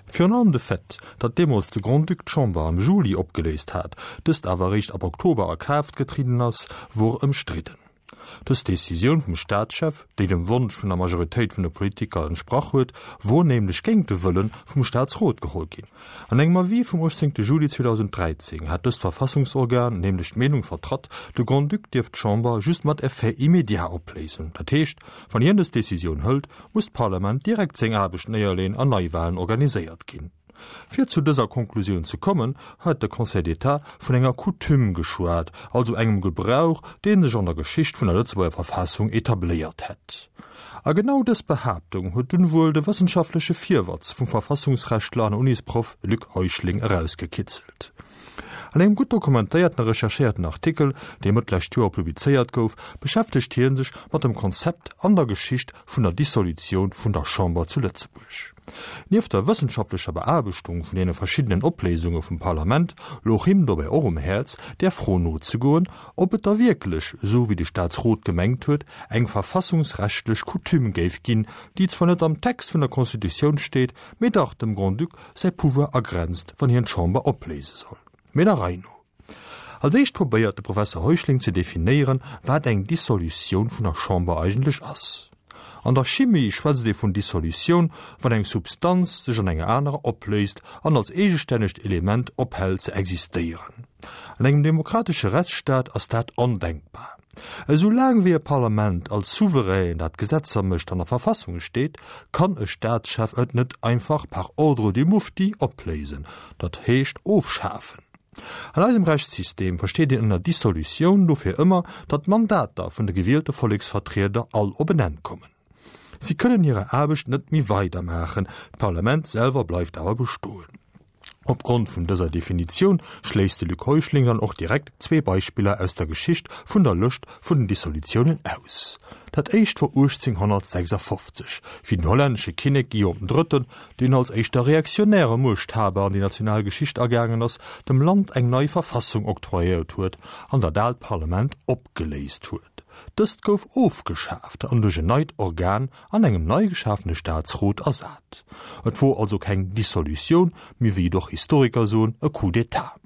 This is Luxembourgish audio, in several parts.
Virun allem de Fait, datt deemools de Grand-Duc d'Chamber am Juli opgeléist hat, dëst awer eréischt ab Oktober a Kraaft getrieden ass, wor ëmstridden. Dës Decisioun vum Staatschef, déi dem Wonsch vun der Majoritéit vun de Politiker entsprach huet, wor nämlech géint de Wëlle vum Staatsrot geholl ginn. An engem Avis vum 18 Juli 2013 hat dëst Verfassungsorgan nämlech d'Meenung vertratt, de Grand-Duc dierft d'Chamber just mat Effet immédiat opléisen. Dat heescht, wann hien dës Decisioun hëlt, muss d'Parlament direkt seng Aarbecht néierleen an Neiwalen organiséiert ginn. Fir zu dëser Konklusioun ze kommen, huet de Conseil d'État vun enger Coutume geschwat, also engem Gebrauch, dee sech an der Geschicht vun der Lëtzebuerger Verfassung etabléiert hätt. A genau dës Behaaptung huet dunn wuel de wëssenschaftleche Virwatz vum Verfassungsrechtler an Unisproff Luc Heuschling erausgekitzelt. An engem gutt dokumentéierten a recherchéierten Artikel, dee Mëtt lescht Joer publizéiert gouf, beschäftegt hie sech mat dem Konzept an der Geschicht vun der Dissolutioun vun der Chamber zu Lëtzebuerg. Nieft der wëssenschaftlecher Beaarbechtung vun deene verschiddenen Opléisunge vum Parlament louch him dobäi och um Häerz, där Fro nozegoen, ob et da wierklech, esou wéi de Staatsrot gemengt huet, eng verfassungsrechtlech Coutume géif ginn, déi zwar net am Text vun der Constitutioun steet, mee dach dem Grand-Duc säi Pouvoir agrenzt, wann hien d'Chamber opléise soll. Mee der Rei no. Als éischt probéiert de Professer Heuschling ze definéieren, wat eng Dissolutioun vun der Chamber eigentlech ass. An der Chimie schwätzt ee vun Dissolutioun, wann eng Substanz sech an enger anerer opléist an als eegestännegt Element ophält ze existéieren. An engem demokratesche Rechtsstaat ass dat ondenkbar. Esou laang wéi e Parlament als Souverän, dat Gesetzer mécht, an der Verfassung steet, kann e Staatschef et net einfach par ordre du mufti opléisen, dat heescht ofschafen. An eisem Rechtssystem versteet een ënner Dissolutioun dofir ëmmer, datt d'Mandater vun de gewielte Volleksvertrieder all op en Enn kommen. Si kënnen hirer Aarbecht net méi weidermaachen, d'Parlament selwer bleift awer bestoen. Opgrond vun dëser Definitioun schléisst de Luc Heuschling dann och direkt zwee Beispiller aus der Geschicht vun der Lëscht vun den Dissolutiounen aus. Dat éischt wor 1856, wéi den hollännesche Kinnek Guillaume den Drëtten, deen als éischter reaktionäre Muechthaber an déi national Geschicht agaangen ass, dem Land eng nei Verfassung octroyéiert huet an dat aalt Parlament opgeléist huet. Dëst gouf ofgeschaaft an duerch en neit Organ an engem nei geschafene Staatsrot ersat. Et wor also keng Dissolutioun, mee wéi et och Historiker soen, e Coup d'État.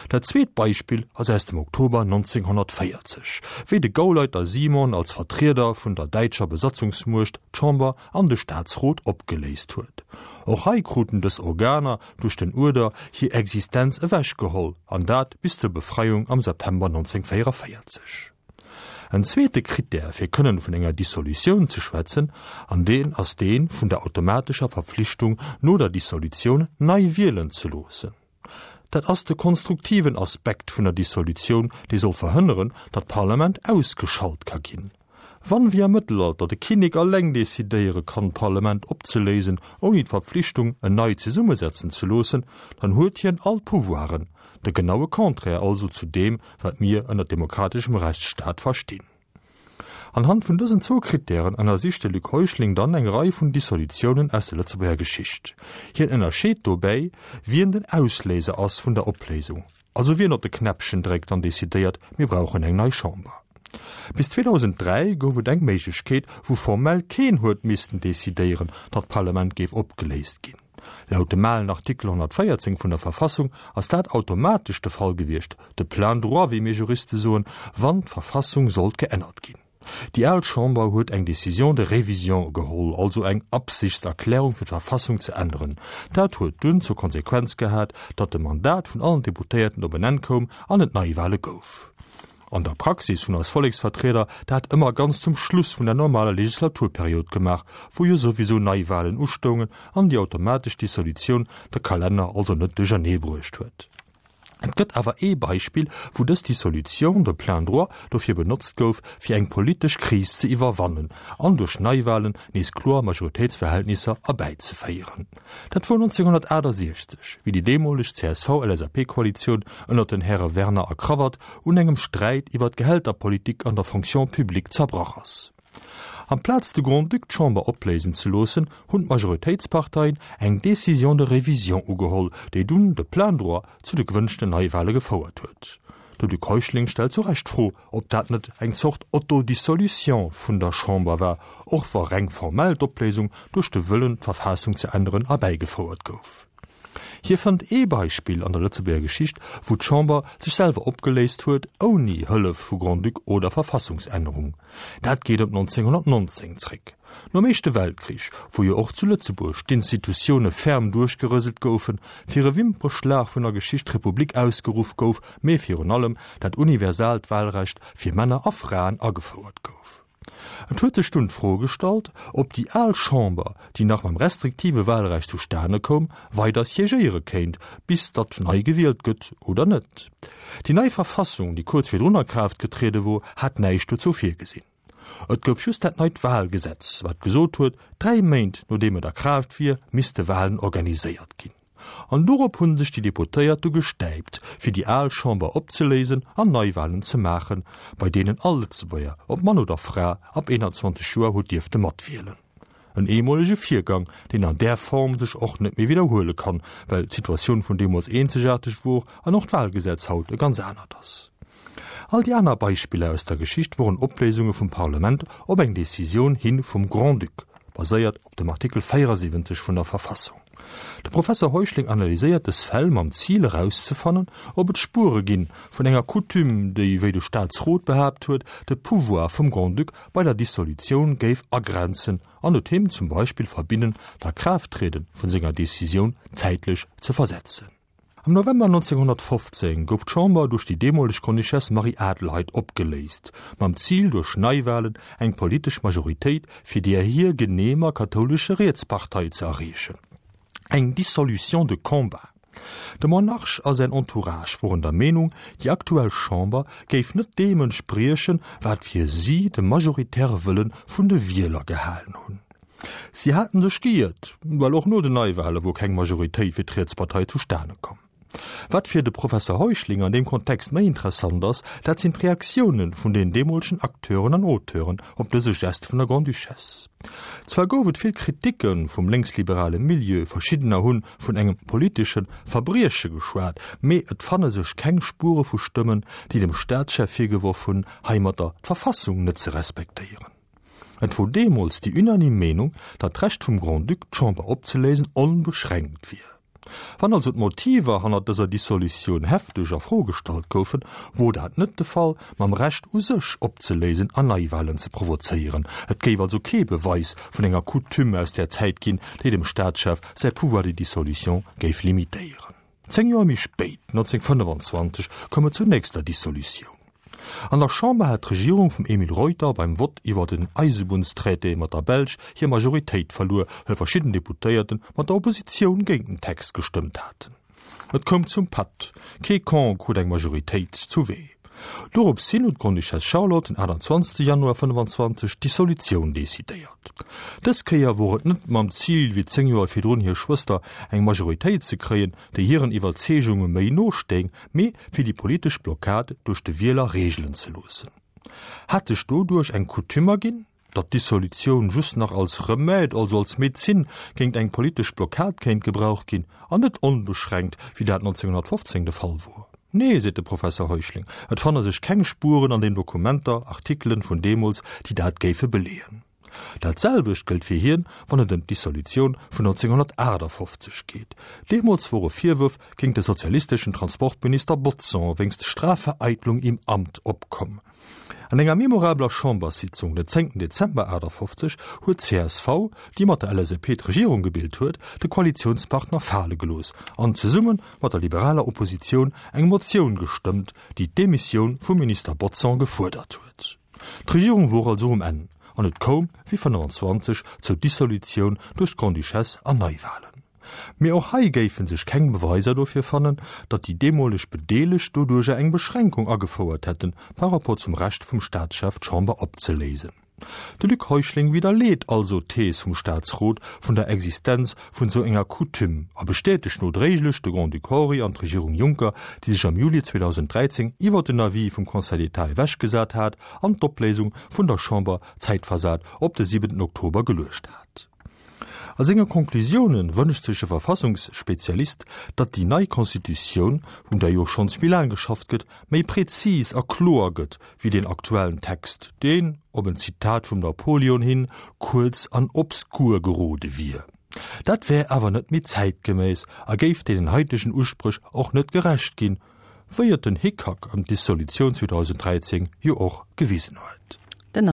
Dat zweet Beispill ass aus dem Oktober 1940, wéi de Gauleiter Simon als Vertrieder vun der däitscher Besatzungsmuecht d'Chamber an de Staatsrot opgeléist huet. Och hei kruten dës Organer duerch den Uerder hir Existenz ewechgeholl, an dat bis zur Befreiung am September 1944. En zweete Krittär fir kënnen vun enger Dissolutioun ze schwätzen, an deen ass dee vun der automatescher Verpflichtung no der Dissolutioun nei wielen ze loossen. Dat ass de konstruktiven Aspekt vun der Dissolutioun, dee soll verhënneren, datt d'Parlament ausgeschalt ka ginn. Wann, wéi am Mëttelalter, de Kinnek alleng decidéiere kann, d'Parlament opzeléisen, ouni d'Verpflichtung, en nei zesummesetzen ze loossen, dann huet hien all d'Pouvoiren, de genaue Contraire also zu deem, wat mir ënner demokrateschem Rechtsstaat verstinn. Anhand vun dësen zwou Krittären ënnersicht de Luc Heuschling dann eng Rei vun Dissolutiounen aus der Lëtzebuerger Geschicht. Hien ënnerscheet dobäi, wien den Ausléiser ass vun der Opléisung, also wien op de Knäppchen dréckt an decidéiert, mir brauchen eng nei Chamber. Bis 2003 gouf et eng Méiglechkeet, wou formell keen huet missten decidéieren, datt d'Parlament géif opgeléist ginn. Laut dem alen Artikel 114 vun der Verfassung ass dat automatesch de Fall gewiescht, de plein droit, wéi mir Juriste soen, wann d'Verfassung sollt geännert ginn. Déi al Chamber huet eng Décision de révision geholl, also eng Absichtserklärung fir d'Verfassung ze änneren. Dat huet dunn zur Konsequenz gehat, datt de Mandat vun allen Deputéierten op en Enn koum an et Neiwahle gouf. An der Praxis hunn eis Volleksvertrieder dat ëmmer ganz zum Schluss vun der normaler Legislaturperiod gemaach, wou jo souwisou Neiwahlen ustoungen an déi automatesch Dissolutioun de Kalenner also net duerchernee bruecht huet. Et gëtt awer ee Beispill, wou dës Dissolution de plein droit dofir benotzt gouf, fir eng politesch Kris ze iwwerwannen an duerch Neiwahlen nees kloer Majoritéitsverhältnisser erbäizeféieren. Dat wor 1968, wéi déi deemoleg CSV-LSAP-Koalitioun ënnert den Häre Werner a Cravat un engem Sträit iwwer d'Gehälterpolitik an der Fonction publique zerbrach ass. Amplaz de Grand-Duc d'Chamber opléisen ze loossen, hunn d'Majoritéitsparteien eng Décision de révision ugeholl, déi dunn de plein droit zu de gewënschten Neiwahle gefouert huet. De Luc Heuschling stellt zu Recht d'Fro, ob dat net eng Zort Autodissolution vun der Chamber war, och wa reng formell d'Opléisung duerch de Wëllen, d'Verfassung ze änneren, erbäigefouert gouf. Hie fënnt ee Beispill an der Lëtzebuerger Geschicht, wou d'Chamber sech selwer opgeléist huet, ouni Hëllef vu Grand-Duc oder Verfassungsännerung. Dat geet op 1919 zréck. Nom Éischte Weltkrich, wou jo och zu Lëtzebuerg d'Institutioune ferm duerchgerëselt goufen, fir e Wimperschlag vun der Geschicht d'Republik ausgeruff gouf, mee virun allem dat universaalt Wahlrecht fir Männer a Fraen agefouert gouf. Et huet sech dunn d'Fro gestallt, ob déi al Chamber, déi nach mam restriktive Wahlrecht zustane koum, weider siégéiere kéint, bis datt nei gewielt gëtt oder net. Déi nei Verfassung, déi kuerz virdrun a Kraaft getriede wor, hat näischt dozou virgesinn. Et gouf just dat neit Wahlgesetz, wat gesot huet, 3 Méint nodeem et a Kraaft wier, misste Wahlen organiséiert ginn. An dorop hunn sech déi Deputéiert du gestäipt, fir déi al Chamber opzeléisen an Neiwahlen ze maachen, bei deenen all Lëtzebuerger, ob Mann oder Fra, ab 21 Joer huet dierfte matwielen. En eemolege Virgang, deen an där Form sech och net méi widderhuele kann, well d'Situatioun vun deemools eenzegaarteg wor an och d'Wahlgesetz haut e ganz anert ass. All déi aner Beispiller aus der Geschicht woren Opléisunge vum Parlement op eng Decisioun hi vum Grand-Duc, baséiert op dem Artikel 74 vun der Verfassung. De Professer Heuschling analyséiert dës Fäll mam Zil erauszefannen, ob et Spuere ginn vun enger Coutume, déi, wéi de Staatsrot behaapt huet, de Pouvoir vum Grand-Duc bei der Dissolutioun géif agrenzen an et him zum Beispill verbinnen, d'Akraafttriede vun senger Decisioun zäitlech ze versetzen. Am November 1915 gouf d'Chamber duerch déi deemoleg Grande-Duchesse Marie-Adelheid opgeléist, mam Zil duerch Neiwalen eng politesch Majoritéit fir déi hir geneemer kathoulesche Rietspartei ze erreechen. Eng Dissolution de combat. De Monarch a säin Entourage woren der Meenung, déi aktuell Chamber géif net deem entspriechen, wat fir si de majoritäre Wëlle vun de Wieler gehalen hunn. Si haten sech geiert, well och no den Neiwale wor keng Majoritéit fir d'Rietspartei zustane komm. Wat fir de Professer Heuschling an deem Kontext méi interessant ass, dat sinn d'Reaktioune vun den deemolegen Acteuren an Auteuren op dëse Gest vun der Grande-Duchesse. Zwar gouf et vill Kriticke vum lénksliberale Milieu, verschiddener hu vun engem politesche Verbrieche geschwat, mee et fanne sech keng Spuere vu Stëmmen, déi dem Staatschef virgeworf hunn, heimatter d'Verfassung net ze respektéieren. Et wor deemools déi unanime Meenung, datt d'Recht vum Grand-Duc, d'Chamber opzeléisen, onbeschränkt wier. Wann also d'Motiver hannert dëser Dissolutioun hefteg a Fro gestallt goufen, wor dat net de Fall mam Recht u sech opzeléisen an Neiwahlen ze provozéieren. Et géif also kee Beweis vun enger Coutume aus där Zäit ginn, déi dem Staatschef säi Pouvoir de dissolution géif limitéieren. 10 Joer méi spéit, 1925, koum et zur nächster Dissolutioun. An der Chamber hat d'Regierung vum Emile Reuter beim Vott iwwer den Eisebunnstraité mat der Belsch hir Majoritéit verluer, well verschidden Deputéierte mat der Oppositioun géint den Text gestëmmt haten. Et koum zum Patt, kee Camp krut eng Majoritéit zuwee. Dorops hin huet d'Grande-Duchesse Charlotte den 28 Januar 25 d'Dissolutioun decidéiert. Dës Kéier wor et net mam Zil, wéi 10 Joer virdrun hir Schwëster, eng Majoritéit ze kréien, déi hiren Iwwerzeegunge méi no stéing, mee fir déi politesch Blockad duerch de Wieler reegelen ze loossen. Hat sech doduerch eng Coutume erginn? Datt d'Dissolutioun just nach als Remède, also als Medezin, géint eng politesch Blockad kéint gebraucht ginn, an net onbeschränkt, wéi dat 1915 de Fall wor? Nee, seet de Professer Heuschling, et fanne sech keng Spuren an den Dokumenter, Artikelen vun deemools, déi dat géife beleeën. Dat selwecht gëllt fir hien, wann et ëm d'Dissolutioun vun 1958 geet. Deemools wore Virwërf géint de sozialisteschen Transportminister Bodson wéinst Strafvereitlung im Amt opkomm. An enger memorabeler Chamberssitzung den 10 Dezember 58 huet d'CSV, déi mat der LSAP d'Regierung gebilt huet, de Koalitiounspartner fale gelooss an zesumme mat der liberaler Oppositioun eng Motioun gestëmmt, déi d'Demissioun vum Minister Bodson gefuerdert huet. D'Regierung wor also um Enn an et koum, wéi 25, zur Dissolutioun duerch d'Grande-Duchesse an Neiwahlen. Mee och hei géife sech keng Beweiser dofir fannen, datt déi deemoleg Bedeelegt doduercher eng Beschränkung agefouert hätten par rapport zum Recht vum Staatschef d'Chamber opzeléisen. De Luc Heuschling widderleet also d'Thees vum Staatsrot vun der Existenz vun esou enger Coutume a bestätegt nodréiglech de Grand-Duc Henri an d'Regierung Juncker, déi sech am Juli 2013 iwwer den Avis vum Conseil d'État ewechgesat hat an d'Opléisung vun der Chamber zäitversat op de 7 Oktober geluecht hat. A senge Conclusioune wënscht sech de Verfassungsspezialist, datt déi nei Constitutioun, un där jo schonns méi laang geschafft gëtt, méi prezis a kloer gëtt wéi deen aktuellen Text, deen, op en Zitat vum Napoleon hin, kuerz an obskur gerode wier. Dat wär awer net méi zäitgeméiss a géif deenen haitegen Uspréch och net gerecht ginn, wéi et den Hickhack ëm d'Dissolutioun 2013 jo och gewisen huet.